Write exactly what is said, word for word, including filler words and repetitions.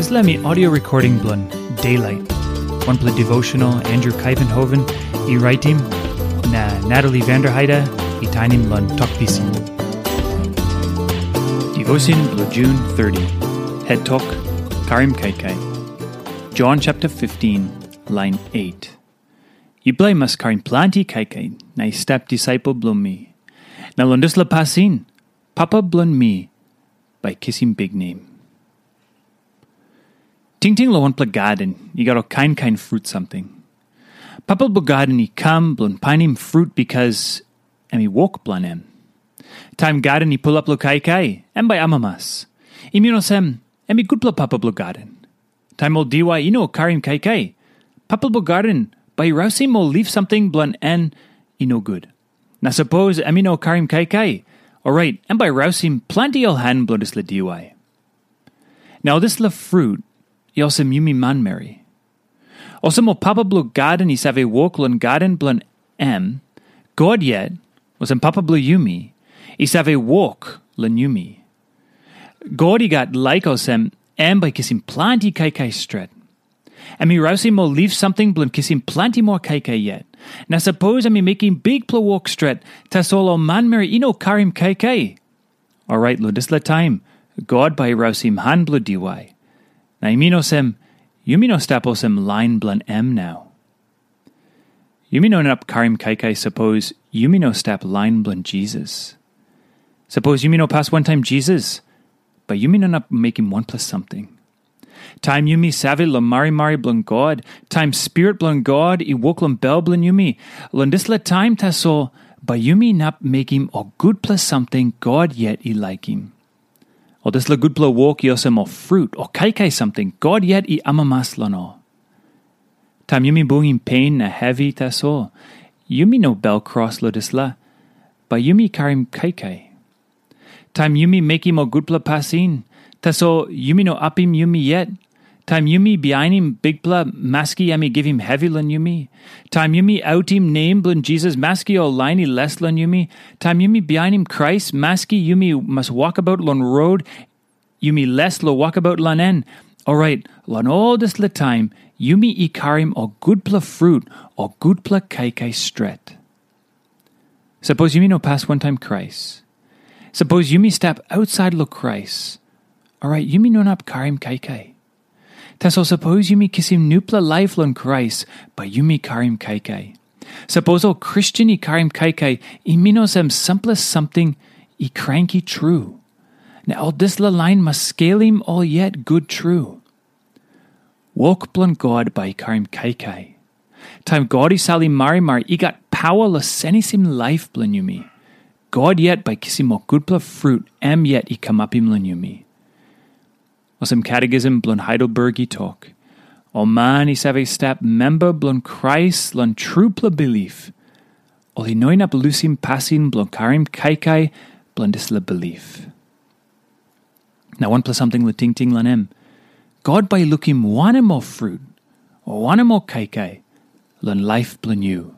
Dispela mi audio recording bilong Daylight, wanpela devotional Andrew Kaivenhoven i raitim, na Natalie Vanderheide i tainim long Tok Pisin. Devotion bilong June thirty, head tok, Karim Kaikai. John chapter fifteen, line eight. Yupela i mas karim planti kaikai na i stap disaipel bilong mi. Na long dispela pasin, Papa bilong mi bai kisim biknem. Tingting long wanpela gaden i gat ol kain kain frut samting. Papa bilong gaden i kam bilong painim frut bikas em i wok bilong em. Taim gaden i pulap long kaikai, em bai amamas. I min olsem, em i gutpela papa bilong gaden. Taim ol diwai i no karim kaikai, papa bilong gaden bai i rausim ol lif samting bilong en i no gut. Na sapos em i no karim kaikai, orait em bai rausim planti ol han bilong dispela diwai. Na ol dispela frut i olsem yumi manmeri. Olsem ol papa bilong gaden i save wok long gaden bilong em, God yet, olsem papa bilong yumi, i save wok long yumi. God i gat laik olsem em bai kisim planti kaikai stret. Em i rausim ol lif samting bilong kisim planti moa kaikai yet. Na sapos em i mekim bikpela wok stret, tasol ol manmeri i no karim kaikai, orait long dispela taim God bai i rausim han bilong diwai. Na i min olsem, yumi no stap olsem lain bilong em nau. Yumi no inap karim kaikai sapos yumi no stap lain bilong Jisas. Sapos yumi no pas wantaim Jisas, bai yumi no inap mekim wanpela samting. Taim yumi save long marimari bilong God, taim Spirit bilong God i wok long bel bilong yumi, long dispela taim tasol bai yumi inap mekim ol gutpela samting God yet i laikim. Ol dispela gutpela wok i olsem ol frut o kaikai samting God yet i amamas long ol. Taim yumi bungim pen na hevi tasol, yumi no bel kros long dispela, bai yumi karim kaikai. Taim yumi mekim ol gutpela pasin, tasol yumi no apim yumi yet. Taim yumi bihainim Bikpela, maski em i givim hevi long yumi. Taim yumi autim nem bilong Jisas, maski ol lain i les long yumi. Taim yumi bihainim Krais, maski yumi mas wokabaut long rot, yumi les long wokabaut long en. Orait, long ol dispela taim, yumi i karim ol gutpela frut, ol gutpela kaikai stret. Sapos yumi no pas wantaim Krais, sapos yumi stap ausait long Krais, orait yumi no inap karim kaikai. Tasol sapos yumi kisim nupela laip long Krais, bai yumi karim kaikai. Sapos ol Kristen i karim kaikai, i min olsem sampela samting i kranki tru. Na ol dispela lain mas skelim ol yet gut tru. Wok bilong God bai i karim kaikai. Taim God i salim marimari, i gat pawa long senisim laip bilong yumi. God yet bai kisim ol gutpela frut em yet i kamapim long yumi. Olsem Catechism bilong Heidelberg i tok, ol man i save stap memba bilong Krais long trupela bilip, ol i no inap lusim pasin bilong karim kaikai bilong dispela bilip. Na wanpela samting long tingting long em, God bai i lukim wanem ol frut, o wanem ol kaikai long laip bilong yu.